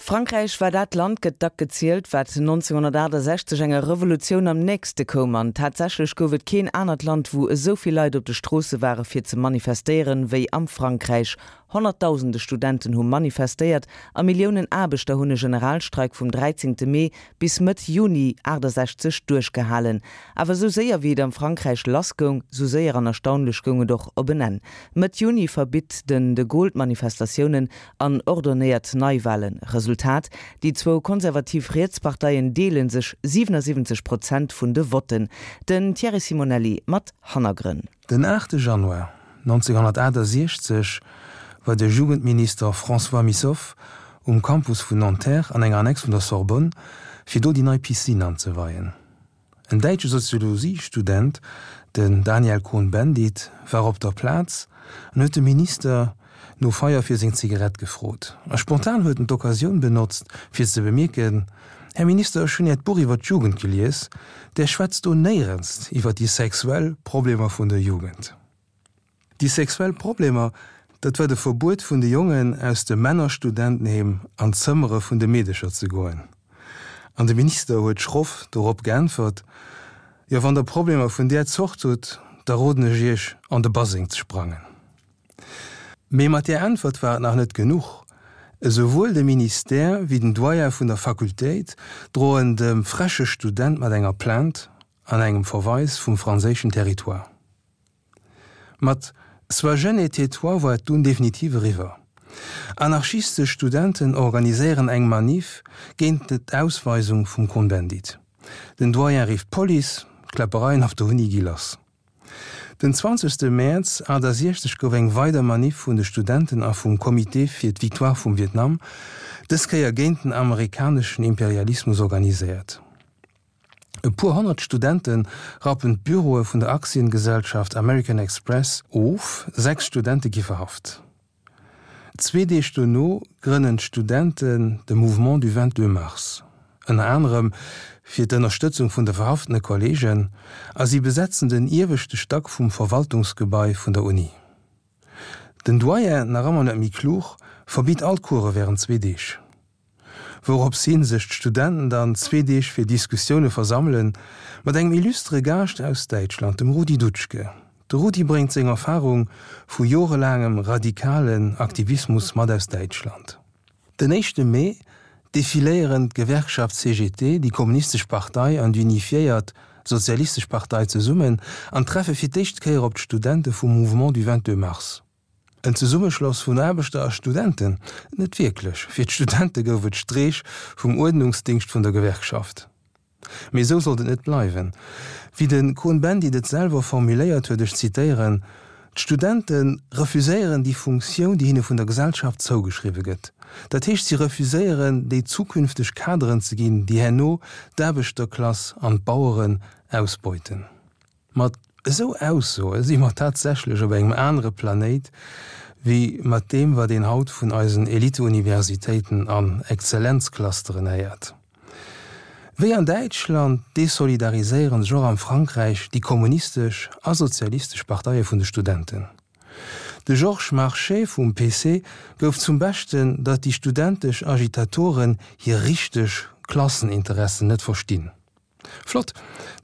Frankräich war dat Land, gëtt dack gezielt, wat 1968 enger Revolutioun am nächste koum. An tatsächlech gouf et keen anert Land, wou esou vill Leit op de Stroosse ware fir ze manifestéieren, wéi am Frankräich. Honnertdausende Studenten hu manifestéiert a Milliounen Aarbechter hunn e Generalstreik vum 13 Mee bis Mëtt Juni 68 duerchgehalen. Awer esou séier wéi et am Frankräich lass goung, sou séier an erstaunlech goung et och op en Enn. Mëtt Juni verbitt den de Gaulle d'Manifestatiounen an ordonéiert Neiwalen. Resultat, Déi zwou konservativ Rietsparteien deele sech 77 Prozent vun de Votten. Den Thierry Simonelli mat Hannergrënn. Den 8 Januar 1968 war de Jugendminister François Missoffe um Campus vun Nanterre an enger Annex vun der Sorbonne, fir do déi nei Piscine anzeweien. En däitsche Soziologiestudent, den Daniel Cohn-Bendit, war op der Plaz an huet de Minister no Feier fir seng Zigarett gefrot. A spontan huet en d'Occasioun benotzt, fir ze bemierken, Här Minister, ech hunn Äert Buch iwwer d'Jugend gelies, Där schwätzt do néierens iwwer déi sexuell Problemer vun der Jugend. Déi sexuell Problemer, dat war de Verbuet vun de Jongen aus dem Männerstudentenheem an d'Zëmmere vun de Meedecher ze goen. An de Minister huet schroff dorop geäntwert, Jo, wann Der Problemer vun där Zort hutt, da roden ech Iech, an de Baseng ze sprangen. Mee mat där Äntwert war et nach net genuch. Esouwuel de Ministère wéi den Doyen vun der Fakultéit droen dem freche Student mat enger Plainte an engem Verweis vum franséischen Territoire. Mat Sois jeune et tais-toi war et dunn definitiv eriwwer. Anarchistesch Studenten organiséieren eng Manif géint d'Ausweisung vum Cohn-Bendit. Den Doyen rifft d'Police, d'Kläppereien op der Uni gi lass. Den 20 Mäerz 68 gouf eng weider Manif vun de Studenten a vum Comité fir d'Victoire vum Vietnam, dës Kéier géint den amerikaneschen Imperialismus organiséiert. E puer honnert Studente rappen d'Büroe vun der Aktiengesellschaft American Express of, 6 Studente gi verhaft. Zwee Deeg dono grënnen d'Studenten de Mouvement du 22 mars, ënner anerem fir d'Ënnerstëtzung vun de verhaftene Kolleegen, a si besetzen den ieweschte Stack vum Verwaltungsgebai vun der Uni. Den Doyen, nach ëmmer net méi klug, verbitt all d'Course wärend zwee Deeg. Wourops hin sech d'Studenten dann zwee Deeg fir Diskussioune versammelen, mat engem illustre Gaascht aus Däitschland, dem Rudi Dutschke. De Rudi bréngt seng Erfarung vu jorelaangem radikalen Aktivismus mat aus Däitschland. Den éischte Mee defiléieren d'Gewerkschaft CGT, déi Kommunistesch Partei an déi Unifiéiert Sozialistesch Partei zesummen an treffe fir d'éischt Kéier op d'Studente vum Mouvement du 22 mars. En Zesummeschloss vun Aarbechter a Studenten? Net wierklech. Fir d'Studente gouf et Streech vum Uerdnungsdingscht vun der Gewerkschaft. Mee esou sollt et net bleiwen. Wéi de Cohn-Bendit et selwer formuléiert huet, ech zitéieren, D'Studente refuséieren déi Funktioun, déi hinne vun der Gesellschaft zougeschriwwe gëtt. Dat heescht, si refuséieren, déi zukünfteg Kaderen ze ginn, déi herno d'Aarbechterklass an d'Baueren ausbeuten. Mat esou Aussoe si mer tatsächlech op engem anere Planéit wéi mat deem, wat een haut vun eisen Eliteuniversitéiten an Exzellenzclusteren héiert. Wéi an Däitschland desolidariséiere sech och am Frankräich déi kommunistesch a sozialistesch Parteie vun de Studenten. De Georges Marchais vum PC gouf zum Beschten, datt déi studentesch Agitatoren hir richteg Klasseninteressen net verstinn. Flott,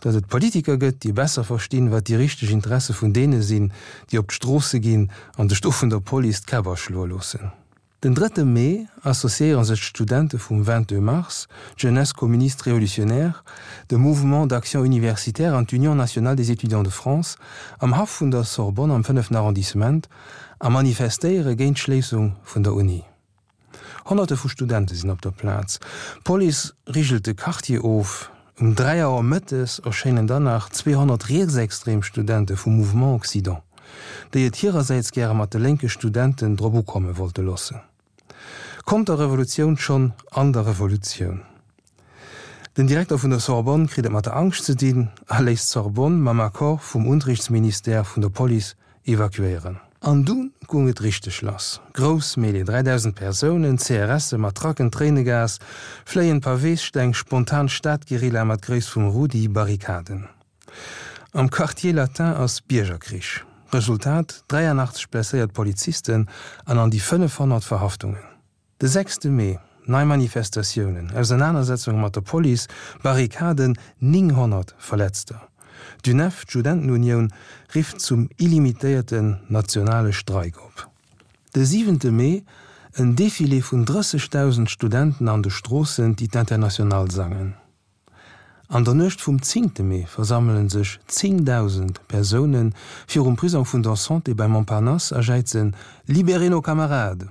datt et Politiker gëtt, déi besser verstinn, wat déi richteg Interesse vun deene sinn, déi op d'Stroosse ginn an sech do vun der Police d'Käpp aschloe loossen. Den drëtte Mee associéiere sech d'Studente vum 22 mars, d'Jeunesse communiste révolutionnaire, de Mouvement d'action universitaire an d'Union nationale des étudiants de France am Haff vun der Sorbonne am fënneften Arrondissement a manifestéiere géint d'Schléissung vun der Uni. Honnerte vu Studente sinn op der Plaz. D'Police rigelt de Quartier of. Um 3 Auer mëttes erschéinen dann nach 200 rietsextrem Studente vum Mouvement Occident, déi et hirersäits gäre mat de lénke Studenten drop ukomme wollte loossen. Konterrevolutioun schonn an der Revolutioun. Den Direkter vun der Sorbonne kritt et mat der Angscht ze dinn a léisst d'Sorbonne mam Accord vum Unterrichtsministère vun der Police evakuéieren. An du gung et richteg lass. Grouss Mêlée, 3000 Persounen, CRSe, Matracken, Tréinegas, fléien Paweessteng, spontan Stadguerilla mat Gréisst vum Rudi, Barrikaden. Am Quartier Latin ass Biergerkrich. Resultat, 83 blesséiert Polizisten an an déi 500 Verhaftungen. De sechste Mee. Nei Manifestatiounen, Ausernanersetzunge mat der Police, Barrikaden, 900 Verletzter. D'UNEF, d'Studentenunioun, rifft zum illimitéierten nationale Streik op. De siwente Mee, en Defilé vun 30.000 Studenten an de Stroossen, déi d'Internationale sangen. An der Nuecht vum zéngte Mee versammele sech 10.000 Persoune virum Prisong vun der Santé bei Montparnasse a jäizen Libérez nos camarades!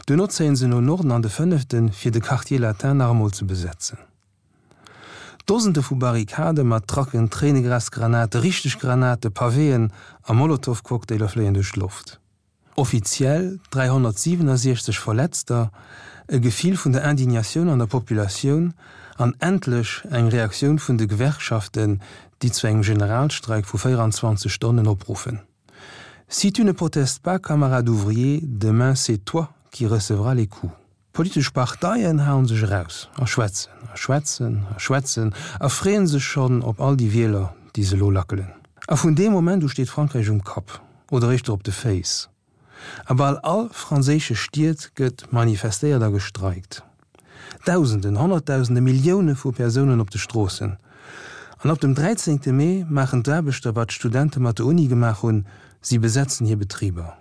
Duerno zéien se no Norden an de Fënneften, fir de Quartier Latin nach emol ze besetzen. Dosende vu Barrikade mat Trucken, Tréinegrasgranate, richteg Granate, Pavéen a Molotowcocktailer fléien duerch d'Loft. Offiziell 367 Verletzter, e Gefill vun der Indignatioun an der Populatioun an endlech eng Reaktioun vun de Gewerkschaften, déi zu engem Generalstreik vu 24 Stonnen opruffen. Si tu ne protestes pas, camarade ouvrier, demain c'est toi qui recevras les coups. D'politesch Parteien haen sech eraus a schwätzen a schwätzen a schwätzen a freeën sech schonn op all déi Wieler, déi se elo lackelen. A vun deem Moment u steet Frankräich um Kapp oder éischter op de Féiss. A bal all franséische Stied gëtt manifestéiert a gestreikt. Dausenden, Honnertdausende, Millioune vu Persounen op de Stroossen. An ab dem 13 Mee maachen d'Aarbechter, wat d'Studente mat der Uni gemaach hunn, si besetzen hir Betriber.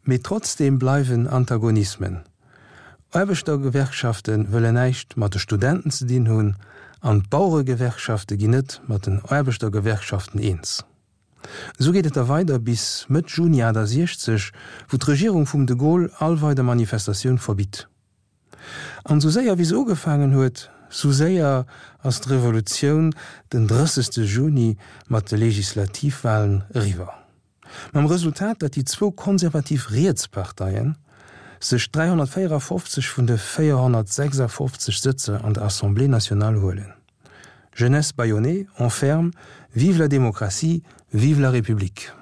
Mee trotzdeem bleiwen Antagonismen. Aarbechtergewerkschafte wëllen näischt mat de Studenten ze dinn hunn an d'Baueregewerkschafte ginn net mat den Aarbechtergewerkschaften eens. Esou geet et da weider bis Mëtt Juni 68, wou d'Regierung vum de Gaulle all weider Manifestatioun verbitt. An sou séier wéi se ugefaangen huet, sou séier ass d'Revolutioun den 30 Juni mat de Legislativwahlen eriwwer. Mam Resultat, datt déi zwou konservativ Rietsparteien sech 354 vun de 456 Sëtzer an der Assemblée nationale huelen. Jeunesse bâillonnée, on ferme, vive la démocratie, vive la République!